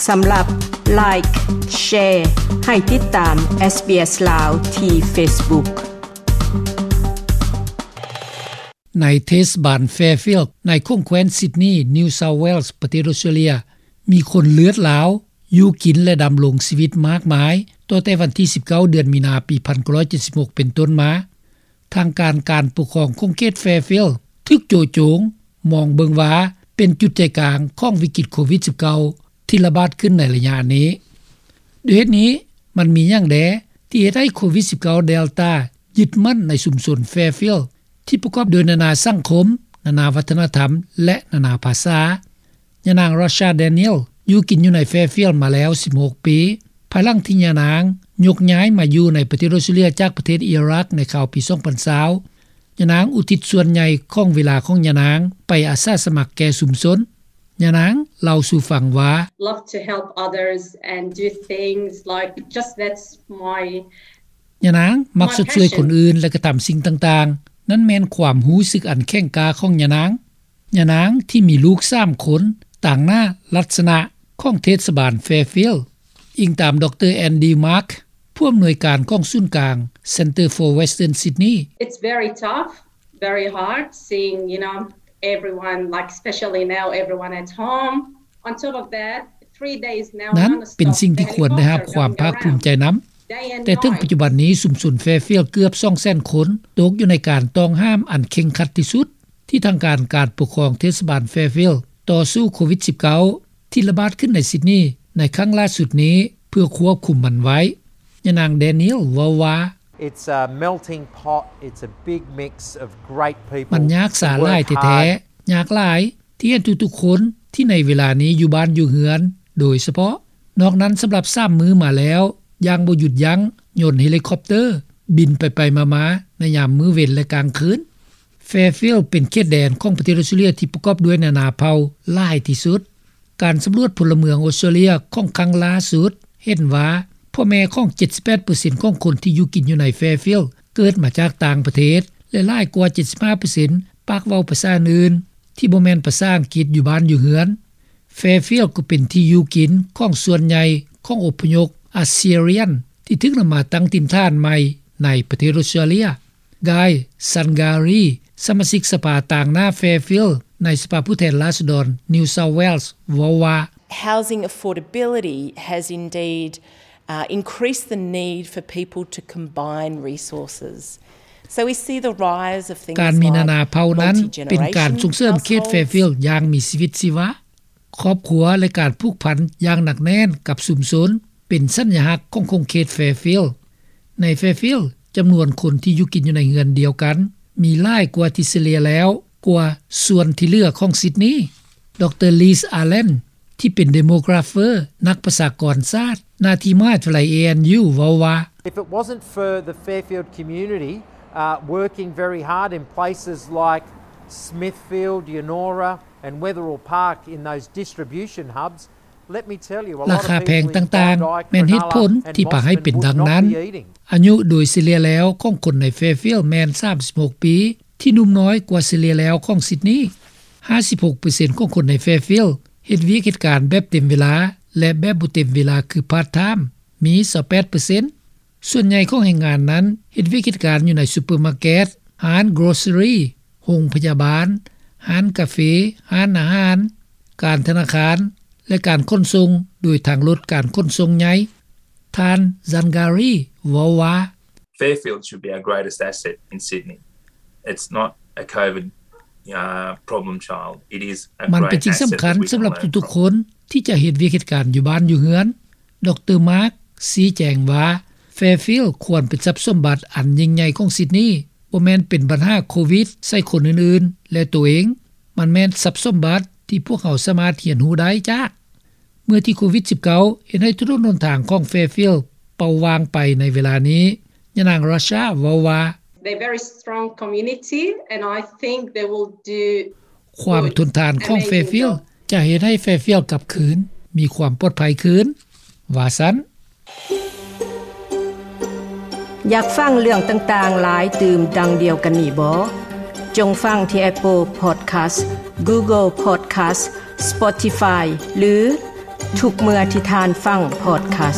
ສຳລັບ Like, Share ໃຫ້ຕິດຕາມ SBS ລາວ ທີ່ Facebook. ໃນເທດສະບານ Fairfield ໃນຂົງແຄວ້ນ Sydney, New South Wales ປະເທດ Australia ມີຄົນເລືອດລາວຢູ່ກິນ ແລະ ດຳລົງຊີວິດມາກມາຍ ຕໍ່ແຕ່ວັນທີ ສິບເກົ້າ ເດືອນມີນາ ປີ ໜຶ່ງພັນເກົ້າຮ້ອຍເຈັດສິບຫົກ ເປັນຕົ້ນມາ. ທາງການ ການປົກຄອງຂົງເຂດ Fairfield ຖືກໂຈະໂຈງມອງເບິ່ງວ່າ ເປັນຈຸດໃຈກາງຂອງວິກິດໂຄວິດ-ສິບເກົ້າ ທີ່ລະບາດຂຶ້ນໃນໄລຍະນີ້. ດ້ວຍເຫດນີ້, ມັນມີຫຍັງແດ່ທີ່ເຮັດໃຫ້ໂຄວິດ-ສິບເກົ້າ Delta ຍຶດໝັ້ນໃນຊຸມຊົນ Fairfield ທີ່ປະກອບດ້ວຍນານາສັງຄົມ, ນານາວັດທະນະທຳ ແລະ ນານາພາສາ? ຍານາງ Rasha Daniel ຢູ່ກິນຢູ່ໃນ Fairfield ມາແລ້ວ ສິບຫົກ ປີ, ພາຍຫຼັງທີ່ຍານາງຍົກຍ້າຍມາຢູ່ໃນປະເທດ Australia ຈາກປະເທດ Iraq ໃນຄາວປີ ສອງພັນຊາວ. ຍານາງອຸທິດສ່ວນໃຫຍ່ຂອງເວລາຂອງຍານາງໄປອາສາສະໝັກແກ່ຊຸມຊົນ. ຍານາງເລົ່າສູ່ຟັງວ່າ, Love to help others and do things like, just that's my ຍານາງມັກຊົດຊ່ວຍຄົນອື່ນ ແລະ ກະທຳສິ່ງຕ່າງໆ. ນັ້ນແມ່ນຄວາມຮູ້ສຶກອັນແຂງກ້າຂອງຍານາງ. ຍານາງທີ່ມີລູກສາມຄົນ ຕາງໜ້າລັດສະນະຂອງເທດສະບານ Fairfield, ອີງຕາມ ດຣ Andy Mark, ຜູ້ອຳນວຍການຂອງສູນກາງ Centre for Western Sydney. It's very tough, very hard seeing, you know, everyone, like, especially now, everyone at home. On top of that, three days now, ນັ້ນເປັນສິ່ງທີ່ຄວນໄດ້ຮັບຄວາມພາກພູມໃຈນຳ. ແຕ່ເຖິງປັດຈຸບັນນີ້, ຊຸມຊົນ Fairfield ເກືອບ ສອງແສນ ຄົນ ຕົກຢູ່ໃນການຕ້ອງຫ້າມອັນເຄັ່ງຄັດທີ່ສຸດ ທີ່ທາງການ ການປົກຄອງເທດສະບານ Fairfield ຕໍ່ສູ້ໂຄວິດ-ສິບເກົ້າ ທີ່ລະບາດຂຶ້ນໃນ Sydney ໃນຄັ້ງລ່າສຸດນີ້ ເພື່ອຄວບຄຸມມັນໄວ້. ຍານາງ Daniel ເວົ້າວ່າ, It's a melting pot. It's a big mix of great people. ມັນຍາກສາຫຼາຍແທ້ໆ, ຍາກຫຼາຍທີ່ເຫັນທຸກໆຄົນທີ່ໃນເວລານີ້ຢູ່ບ້ານຢູ່ເຮືອນໂດຍສະເພາະ. ນອກນັ້ນ, ສຳລັບສາມມື້ມາແລ້ວ, ຢ່າງບໍ່ຢຸດຢັ້ງ, ຍົນເຮລິຄອບເຕີບິນໄປໆມາໆໃນຍາມມື້ເວັນ ແລະ ກາງຄືນ. Fairfield ເປັນເຂດແດນຂອງປະເທດ Australia ທີ່ປະກອບດ້ວຍນານາເຜົ່າຫຼາຍທີ່ສຸດ. ການສຳຫຼວດພົນລະເມືອງ Australia ຂອງຄັ້ງລ່າສຸດເຫັນວ່າ ພໍ່ແມ່ຂອງ ເຈັດສິບແປດເປີເຊັນ ຂອງຄົນທີ່ຢູ່ກິນຢູ່ໃນ Fairfield ເກີດມາຈາກຕ່າງປະເທດ ແລະ ຫຼາຍກວ່າ ເຈັດສິບຫ້າເປີເຊັນ ປາກເວົ້າພາສາອື່ນໆ ທີ່ບໍ່ແມ່ນພາສາອັງກິດຢູ່ບ້ານຢູ່ເຮືອນ. Fairfield ກໍເປັນທີ່ຢູ່ກິນຂອງສ່ວນໃຫຍ່ຂອງອົບພະຍົບ Assyrian ທີ່ຖືກນຳມາຕັ້ງຖິ່ນຖານໃໝ່ໃນປະເທດ Australia. Guy Sangari, ສະມາຊິກສະພາຕາງໜ້າ Fairfield ໃນສະພາຜູ້ແທນລາຊະດອນ New South Wales ເວົ້າວ່າ, Housing affordability has indeed, uh, increased the need for people to combine resources. So we see the rise of things like ການມີນານາເຜົ່ານັ້ນເປັນການສົ່ງເສີມເຂດ Fairfield ຢ່າງມີຊີວິດຊີວາ. ຄອບຄົວ ແລະ ການຜູກພັນຢ່າງໜັກແໜ້ນກັບຊຸມຊົນ ເປັນສັນຍະລັກຂອງຂົງເຂດ Fairfield. ໃນ Fairfield, ຈຳນວນຄົນທີ່ຢູ່ກິນຢູ່ໃນເຮືອນດຽວກັນ ມີຫຼາຍກວ່າທີ່ສະເລ່ຍແລ້ວກວ່າສ່ວນທີ່ເຫຼືອຂອງ Sydney. ດຣ Liz Allen ທີ່ເປັນ Demographer, ນັກປະຊາກອນສາດ ໜ້າທີ່ມະຫາວິທະຍາໄລ A N U ເວົ້າວ່າ, If it wasn't for the Fairfield community, uh, working very hard in places like Smithfield, Yennora, and Wetherill Park in those distribution hubs, let me tell you, a lot of people in Bondi, Cronulla and Mosman would not be eating. ອາຍຸໂດຍສະເລ່ຍແລ້ວຂອງຄົນໃນ Fairfield ແມ່ນ ສາມສິບຫົກ ປີ, ທີ່ໜຸ່ມນ້ອຍກວ່າສະເລ່ຍແລ້ວຂອງ Sydney. ຫ້າສິບຫົກເປີເຊັນຂອງຄົນໃນ Fairfield ເຮັດວຽກເຮັດການແບບເຕັມເວລາ ແລະ ແບບບໍ່ເຕັມເວລາ ຄື part time ມີ ຊາວແປດເປີເຊັນ. ສ່ວນໃຫຍ່ຂອງແຮງງານນັ້ນເຮັດວຽກເຮັດການຢູ່ໃນຊຸບເປີມາເກັດ, ຮ້ານ grocery, ໂຮງພະຍາບານ, ຮ້ານກາເຟ, ຮ້ານອາຫານ, ການທະນາຄານ ແລະ ການຂົນສົ່ງ ໂດຍທາງລົດການຂົນສົ່ງໃຫຍ່. ທ່ານ Zangari ເວົ້າວ່າ, Fairfield should be our greatest asset in Sydney. It's not a COVID, uh, problem child. It is a great asset that we can learn from. ມັນເປັນສິ່ງສຳຄັນສຳລັບທຸກໆຄົນທີ່ຈະເຮັດວຽກເຮັດການຢູ່ບ້ານຢູ່ເຮືອນ. ດຣ Mark ຊີ້ແຈງວ່າ Fairfield ຄວນເປັນຊັບສົມບັດອັນຍິ່ງໃຫຍ່ຂອງ Sydney, ບໍ່ແມ່ນເປັນບັນຫາໂຄວິດໃສ່ຄົນອື່ນໆ ແລະ ໂຕເອງ. ມັນແມ່ນຊັບສົມບັດທີ່ພວກເຮົາສາມາດຮຽນຮູ້ໄດ້ຈາກ. ເມື່ອທີ່ໂຄວິດ-ສິບເກົ້າ ເຮັດໃຫ້ຖະໜົນຫົນທາງຂອງ Fairfield ເປົ່າວ່າງໄປໃນເວລານີ້, ຍານາງ Rasha ເວົ້າວ່າ, They're very strong community and I think they will do ຄວາມທົນທານຂອງ Fairfield ຈະເຮັດໃຫ້ Fairfield ກັບຄືນມີຄວາມປອດໄພຄືນ, ວ່າຊັ້ນ. ຢາກຟັງເລື່ອງຕ່າງໆຫຼາຍຕື່ມດັ່ງດຽວກັນນີ້ບໍ? ຈົ່ງຟັງທີ່ Apple Podcast, Google Podcast, Spotify ຫຼື ທຸກເມື່ອທີ່ທ່ານຟັງພອດຄາສ.